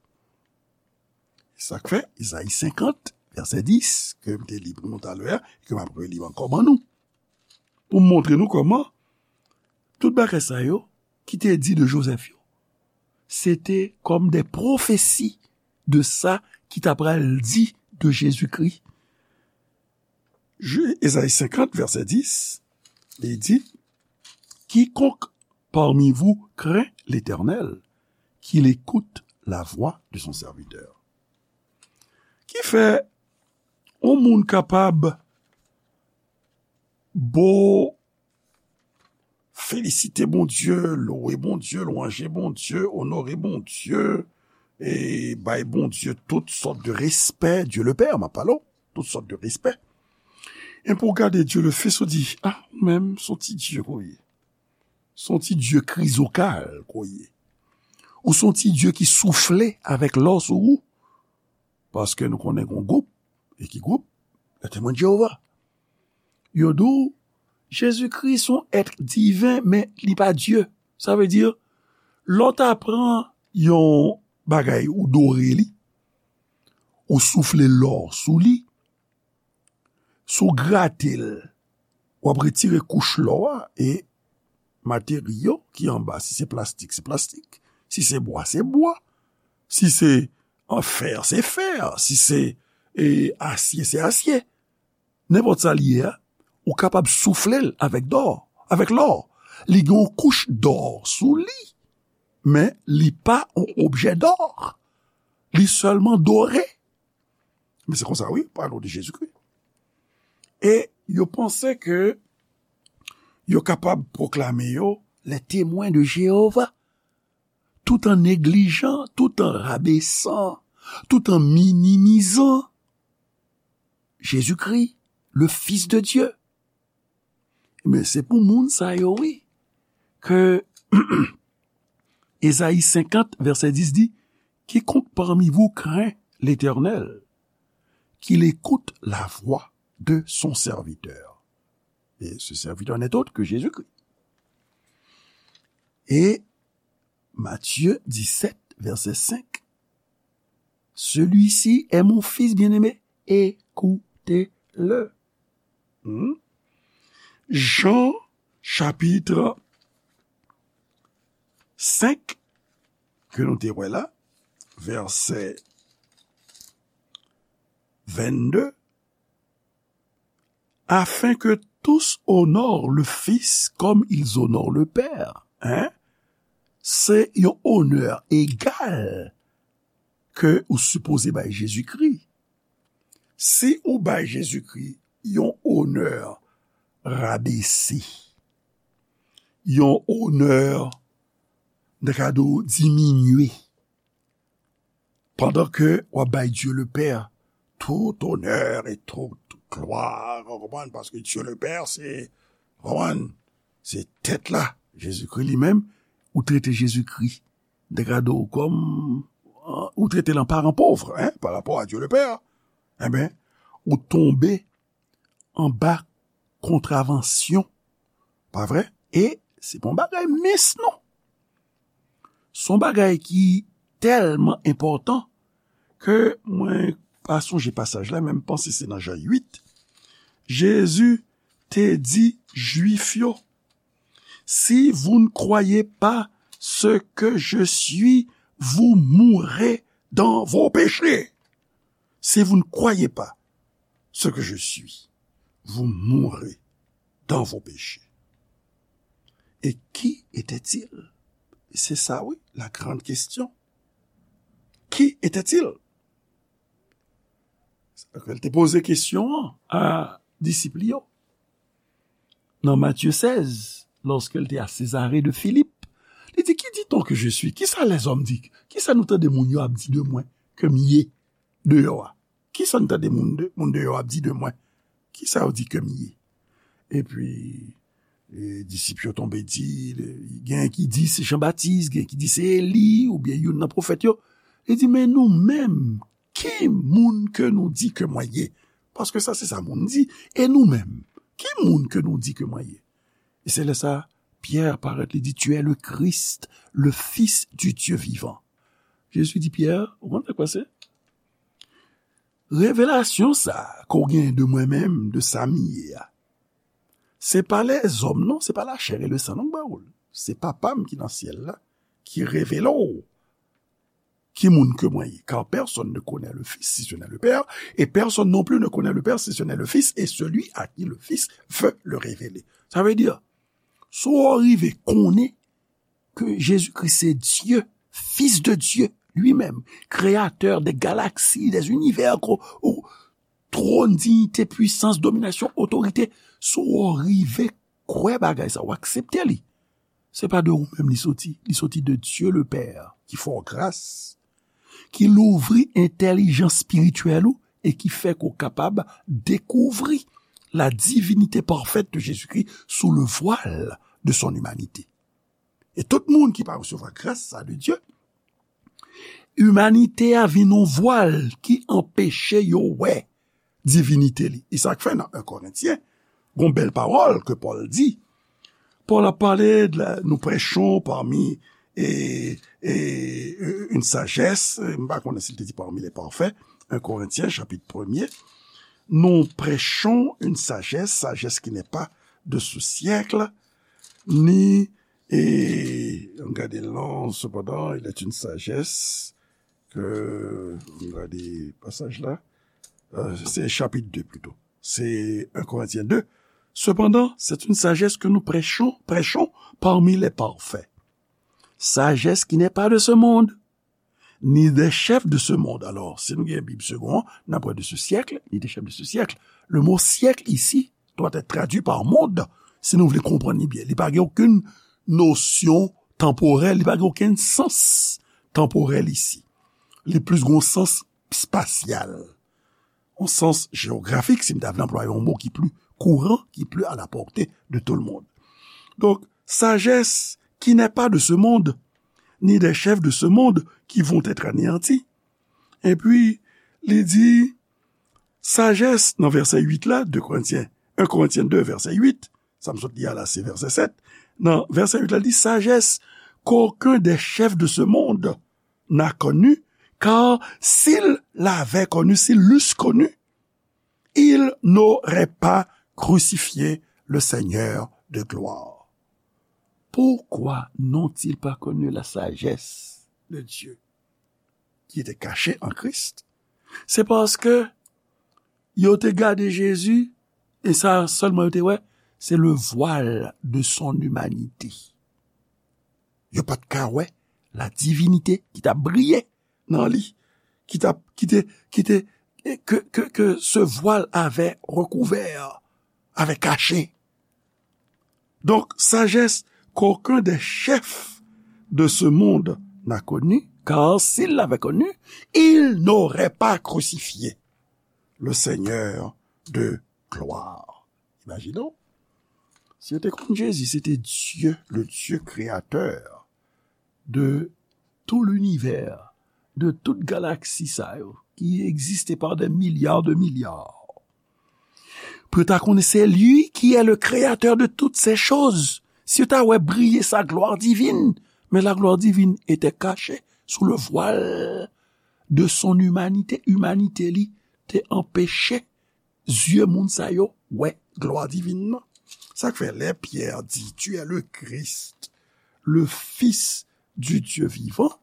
Sa k fè, Ezayi senkant, vèsè dis, ke m te li pou nou talè a, e ke m ap reli ankò ban nou, pou m montre nou kòman tout bagay sa yo ki te di de Jozèf yo, se te kòm de pwofesi de sa ki ta pral di de Jezikri. Je, Ezayi senkant, vèsè dis, li di, quiconque parmi vous craint l'Éternel, qu'il écoute la voix de son serviteur. Ki fè yon moun kapab bo felisite Bondye, louwe Bondye, lwanje Bondye, onore Bondye, e bay Bondye tout sòt de respè, Dieu le Père, m ap pale w, tout sòt de respè. E pou w gade Dieu le Fils, ou di, ah, ou menm, se yon ti Dye ke w ye. Se yon ti Dye krizokal ke w ye. Ou se yon ti Dye ki soufle avèk lò sou ou. Paske nou konnen gon gwoup, e ki gwoup? Le Temwen de Jewova. Yo di w, Jezikri se yon èt diven, men li pa Dye. Sa vle di, lè w ta pran yon bagay, ou dore li, ou soufle lò sou li, si w grate l, w ap retire kouch lò a e materyo ki anba, si se plastik, se plastik, si se bwa, se bwa, si se, an, fè, se fè, si se, e, asye, se asye. Nenpòt sa li ye a, ou kapab soufle l avèk dò, avèk lò. Li gen yon kouch dò sou li, men li pa yon objè dò. Li sèlman dore. Men se konsa, wi, pale w de Jezikri. E yo panse ke yo kapab pwoklame yo les Témoins de Jéhovah. tout en négligeant, tout en rabaissant, tout en minimisant Jésus-Christ, le Fils de Dieu. Men se pou moun sa yo, wi, ke Ezayi senkant, vèsè dis di, Quiconque parmi vous craint l'Éternel, qu'il écoute la voix de son serviteur. Et ce serviteur n'est autre que Jésus-Christ. Et Matthieu dix-sept, verset cinq. Celui-ci est mon fils bien-aimé, écoutez-le. Hmm? Jean, chapitre cinq, ke nou te wè la, vèsè vennde, afin que tous honorent le Fils comme ils honorent le Père. Hein? Se yon onè egal ke ou sipoze bay Jezikri. Si ou bay Jezikri yon onè rabese, yon onè, n ta ka di w, diminye, pandan ke w ap bay Dieu le Père tout honneur et toute gloire, ou konprann, paske Dieu le Père, se, ou konprann, se tèt la, Jezikri li menm, ou trete Jezikri, n ta ka di w kòm, ou trete l an paran pòv, hein, pa rapò a Dieu le Père, enben, ou tonbe anba kontravansyon. Pa vre? E se pa yon bagay mens, non. Se yon bagay ki tèlman enpòtan ke mwen pa sonje pasaj la, men m panse se nan Jan uit. Jezi te di Jwif yo, Si vous ne croyez pas ce que je suis, vous mourrez dans vos péchés. Si vous ne croyez pas ce que je suis, vous mourrez dans vos péchés. Et qui était-il? C'est ça, oui, la grande question. Qui était-il? Sa ke l te poze kesyon an a disip li yo. Nan Matye sèz, lòske l te a Césarée de Philippe, li di, Qui dit-on que je suis? Kisa lèzòm di? Kisa nou tande moun yo ap di de mwen ke m ye deyò a? Kisa n tande moun de, moun deyò ap di de mwen? Kisa yo di ke m ye? Epi, e, disip yo tonbe di, le, gen ki di se Jan Batis, gen ki di se Eli, oubyen youn nan pwofèt yo. Li di, Men nou menm, ki moun ke nou di ke mwen ye? Paske sa se sa moun di. E nou menm, ki moun ke nou di ke mwen ye? E se lè sa, Pyè parèt, li di, Tu es le Christ, le Fils du Dieu vivant. Jezi di Pyè, ou konn sa k pase? Revelasyon sa ke w gen de mwen menm, de sa m ye a, se pa lèzòm non, se pa la chair et le sang non k ba w l. Se Papa m ki nan syèl la ki revele w ki moun ke mwen ye. Car personne ne connaît le Fils si ce n'est le Père, et personne non plus ne connaît le Père si ce n'est le Fils, et celui à qui le Fils veut le révéler. Sa vle di, si w rive konnen ke Jezikri se Dye, Fils de Dieu, lui-même, créateur des galaxies, des univers, ko-, ou, twòn, diyite, pwisans, dominasyon, otorite, si w rive kwè bagay sa, w aksepte li, se pa de ou menm li soti, li soti de Dieu le Père, ki fè w gras, ki louvri entèlijans espirityèl ou e ki fè ke w kapab dekouvri la divinité parfaite de Jésus-Christ sous le voile de son humanité. E tout moun ki pa resevwa gras sa de Dye, imanite a vin yon vwal ki anpeche yo wè divinite li. E sa k fè nan en Korentyen, gon bèl pawòl ke Pòl di. Pòl ap pale de la, nous prêchons parmi, et, et, euh, une sagesse, m pa konnen si l te di parmi les parfaits, en Corinthiens chapitre premier, nous prêchons une sagesse, sagesse qui n'est pas de ce siècle, ni, e, ann gade lan, cependant, il est une sagesse que, ann gade pasaj la, euh, c'est chapitre deux plutôt. C'est un Corinthiens deux. Cependant, c'est une sagesse que nous prêchons, prêchons parmi les parfaits. Sagesse qui n'est pas de ce monde, ni des chefs de ce monde. Alors, si nou gen Bib Segond an, n ap wè de ce siècle, ni des chefs de ce siècle. Le mot siècle ici doit être traduit par monde, si nou vle konprann li byen. Li pa gen okenn nosyon tanporèl, li pa gen okenn sans tanporèl isi. Li plis gen yon sans espasyal, yon sans jewografik, si m ta vle anplwaye yon mo ki pli kouran, ki pli à la portée de tout le monde. Donc, sagesse qui n'est pas de ce monde, ni des chefs de ce monde qui vont être anéantis. Epi, li di, sajès, nan vèsè uit la, de Korentyen, un Corinthiens deux, vèsè uit, sa m sot li a la, se vèsè sèt. Nan vèsè uit la, li di, sagesse qu'aucun des chefs de ce monde n'a connue, car s'il l'avait connue, s'il l'eussent connue, ils n'auraient pas crucifié le Seigneur de gloire. Pourquoi n'ont-ils pas connu la sagesse de Dieu qui était cachée en Christ? Se paske yo te gade Jezi, e sa sèlman yo te wè, se le voile de son humanité. Yo pa t ka wè la divinite ki t ap briye nan li, ki t ap, ki te, ki te, ke, ke, ke ce voile avait recouvert, avait caché. Donc, sagesse qu'aucun des chefs de ce monde n'a connue, car s'il l'avait connue, il n'aurait pas crucifié le Seigneur de gloire. Imagine donc, si yo te konn Jezi, se te Dye, le Dye kreyatè de tout linivè, de tout galaksi sa yo, ki egziste par des milliards de milliards. Pou yo ta konnen se li ki est le créateur de toutes ces choses. Si yo ta wè briye sa gloire divine, mais la gloire divine était cachée sous le voile de son humanité. Imanite li te anpeche zye moun sa yo wè gloire divine nan. Sa k fè lè Pierre dit, tu es le Christ, le Fils du Dieu vivant,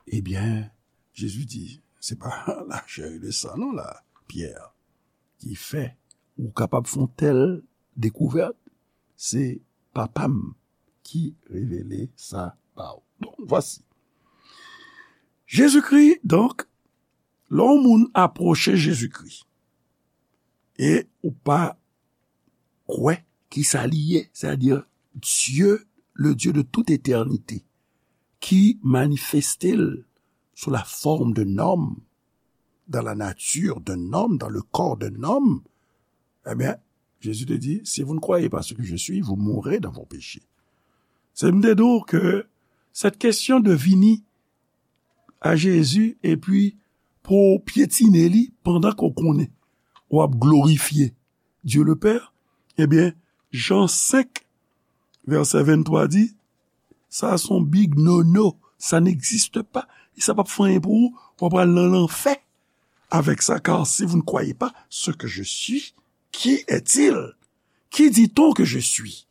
eh bien, Jésus dit, c'est pas la chair et le sang, non, là, Pierre, qui fait ou capable font telle découverte, c'est papa m ki révélé ça ba ou. Donc, voici. Jésus-Christ, donc, lè yon moun apwoche Jezikri, e ou pa kwè ki sa li ye, c'est-à-dire Dieu, le Dieu de toute éternité, qui manifesté sous la forme d'un homme, dans la nature d'un homme, dans le corps d'un homme, eh bien, Jésus te dit, si vous ne croyez pas ce que je suis, vous mourrez dans vos péchés. Se m te di w ke cette question de vini a Jezi, epi pou w pyetine li pandan ke w konnen w ap glorifye Dieu le Père, ebyen, Jan senk, vèsè venntwa di, sa se yon big no-no, ça n'existe pas, e sa p ap fè anyen pou ou, w ap al nan lanfè avèk sa, car si vous ne croyez pas ce que je suis, qui est-il? Qui dit-on que je suis?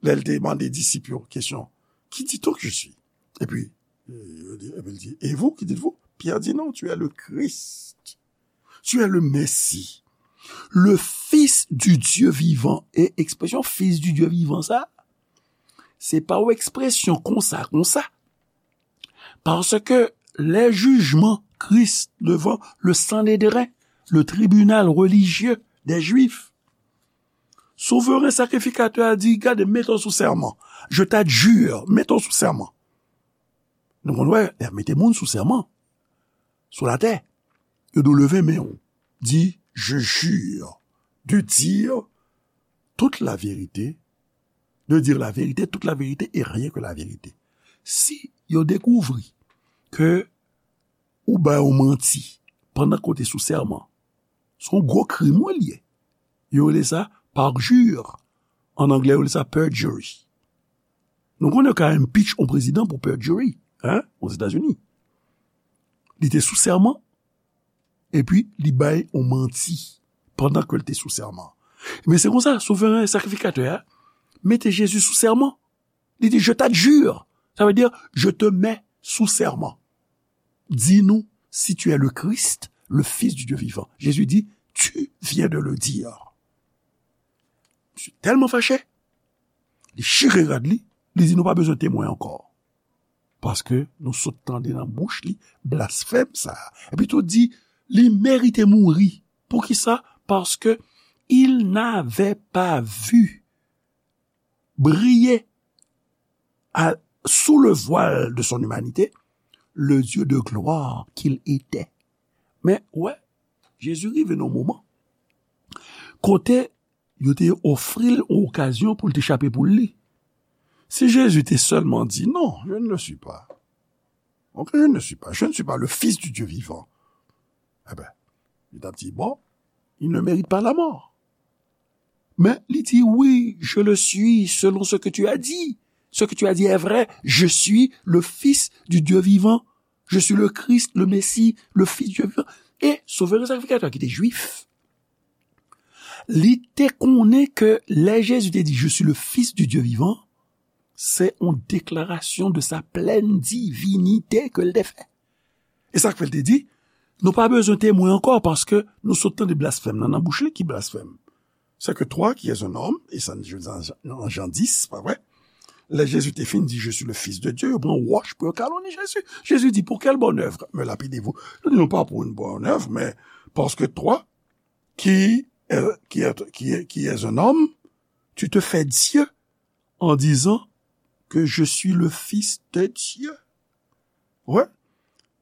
Lè l te mande disip yo kesyon, qui dit-on que je suis? Epi, euh, epi l di, et vous, qui dites-vous? Pierre dit, non, tu es le Christ. Tu es le Messie, le Fils du Dieu vivant. E ekspresyon Fils du Dieu vivant sa, se pa yon ekspresyon konsa, konsa. Paske lè jijman Kris devan le Sanedren, le tribinal relijye dè Jwif, souveren sakrifikatè a di, gade, mete w sou sèman. Je t'adjure, mete w sou sèman. Nou konn wè, lè y ap mete moun sou sèman, sou latè, yo di w leve men w, di, je jure de dire toute la vérité, de dire la vérité, toute la vérité et rien que la vérité. Si yo dekouvri ke ou bay yon manti pandan ke w te sou sèman, se yon gwo krim wi l ye. Yo rele sa parjure. An anglè, yo rele sa perjury. Nou konnen yo ka impeach yon prezidan pou perjury, hein, Ozetazini. Li te sou sèman, epi li bay yon manti pandan ke l te sou sèman. Men se konsa, souveren sakrifikatè a mete Jezi sou sèman. Li di, je t'adjure. Ça veut dire, je te mets sous serment. Dis-nous si tu es le Christ, le Fils du Dieu vivant. Jésus dit, tu viens de le dire. Misye tèlman fache, li chire rad li, li di, nou pa bezwen temwen ankò. Paske nou sot tande nan bouch li blasfèm sa a. Epi tou di, li merite mouri. Poukisa? Paske il n'avait pas vu briller à, sous le voile de son humanité, le Dieu de gloire qu'il était. Men, wè, Jezi rive nan moman kote yo te ofri l yon okazyon pou l te chape poul li. Si Jezi te sèlman di, non, je ne le suis pas. Ok, je ne le suis pas. Je ne suis pas le Fils du Dieu vivant. Eben, li t ap di, bon, il ne mérite pas la mort. Men li di, oui, je le suis, selon ce que tu as dit. Ce que tu as dit est vrai. Je suis le Fils du Dieu vivant. Je suis le Christ, le Messie, le Fils du Dieu vivant. E Sovè e Sakrifikatè ki te jwif, li te konnen ke lè Jezi te di, je suis le Fils du Dieu vivant, se yon deklarasyon de sa plèn divinite ke l te fè. E sa k fè l te di, nou pa bezwen temwen ankò, paske nou sot tande blasfèm nan nan bouch li. Ki blasfèm? C'est que toi qui es un homme, e sa nan Jan dis, pa vre? Lè Jezi te fin di, je suis le Fils de Dieu, yo pran wòch pou yo kaloni Jezi. Jezi di, pour quelle bonne œuvre me lapidez-vous? Li di, non pa pou yon bòn èv, men paske toi, qui, euh, qui, est, qui, est, qui es un homme, tu te fais Dieu en disant que je suis le Fils de Dieu. Ouais.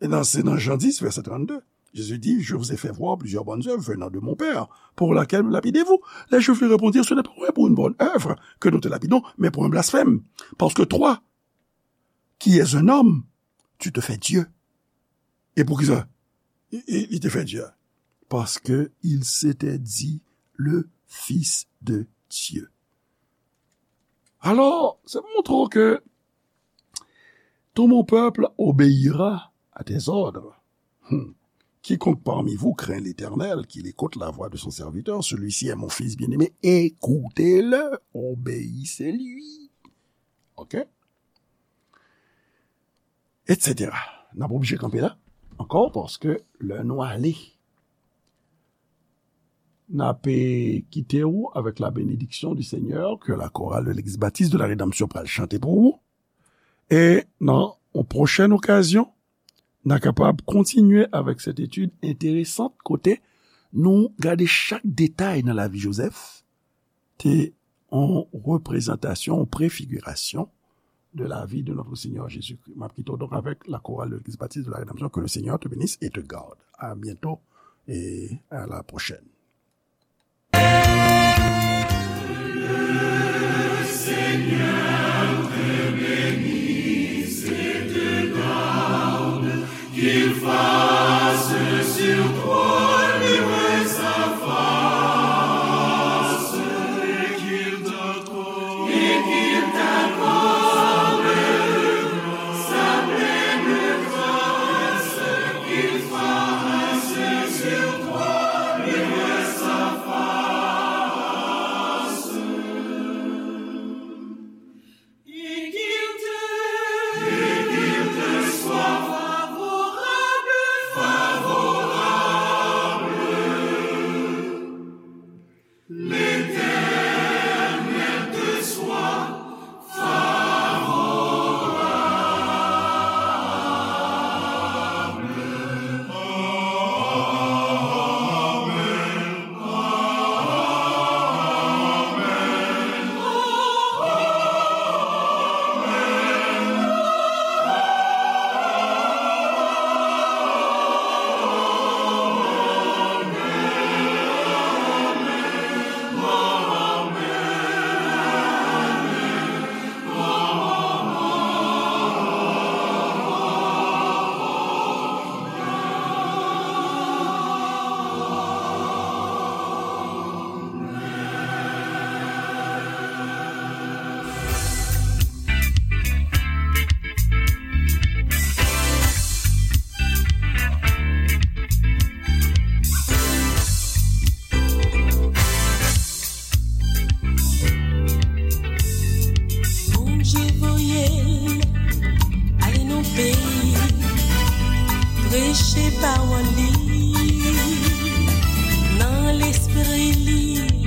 E nan, se nan Jan dis, vèsè trannde. Jésus dit, je vous ai fait voir plusieurs bonnes œuvres venant de mon Père, pour laquelle me lapidez-vous? Les Juifs lui répondirent, ce n'est pas pour une bonne œuvre que nous te lapidons, mais pour un blasphème. Parce que toi, qui es un homme, tu te fais Dieu. E poukisa li, li, li te fè Dye? Parce que il s'était dit le Fils de Dieu. Alors, c'est pour montrer que tout mon peuple obéira à tes ordres. Hmm. Quiconque parmi vous craint l'Éternel, qu'il écoute la voix de son serviteur, celui-ci est mon fils bien-aimé, écoutez-le, obéissez-lui. Ok? Et cetera. N ap oblije kanpe la ankò, paske lè nou ale, n ap kite w avec la bénédiction du Seigneur, ke la chorale de l'Église Baptiste de la Rédemption pral chante pou ou. E nan yon pwochèn okazyon, n a kapab kontinye avec cette étude intéressante kote nou gade chak detay nan lavi Joseph, te yon reprezantasyon, yon prefigirasyon de la vie de notre Seigneur Jésus-Christ. M ap kite w donk avec la chorale de l'Église Baptiste de la Rédemption. Que le Seigneur te bénisse et te garde. À bientôt et à la prochaine. Qu'il fasse sur toi luire sa face, et qu'il t'accorde, et qu'il t'accorde sa pleine grâce, qu'il fasse sur toi luire sa face. Et qu'il te, et qu'il te soit favorable, favorable. L'Éternel te soit favorable. Bondye voye l ale nan peyi, preche pawòl li nan lespri li,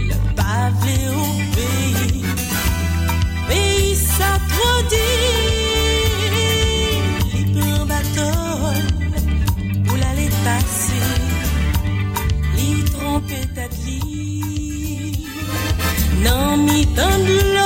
l pa vle obeyi. Peyi sa twò di, li pran bato l pou l ale pase, li twonpe tèt li. Nan mitan dlo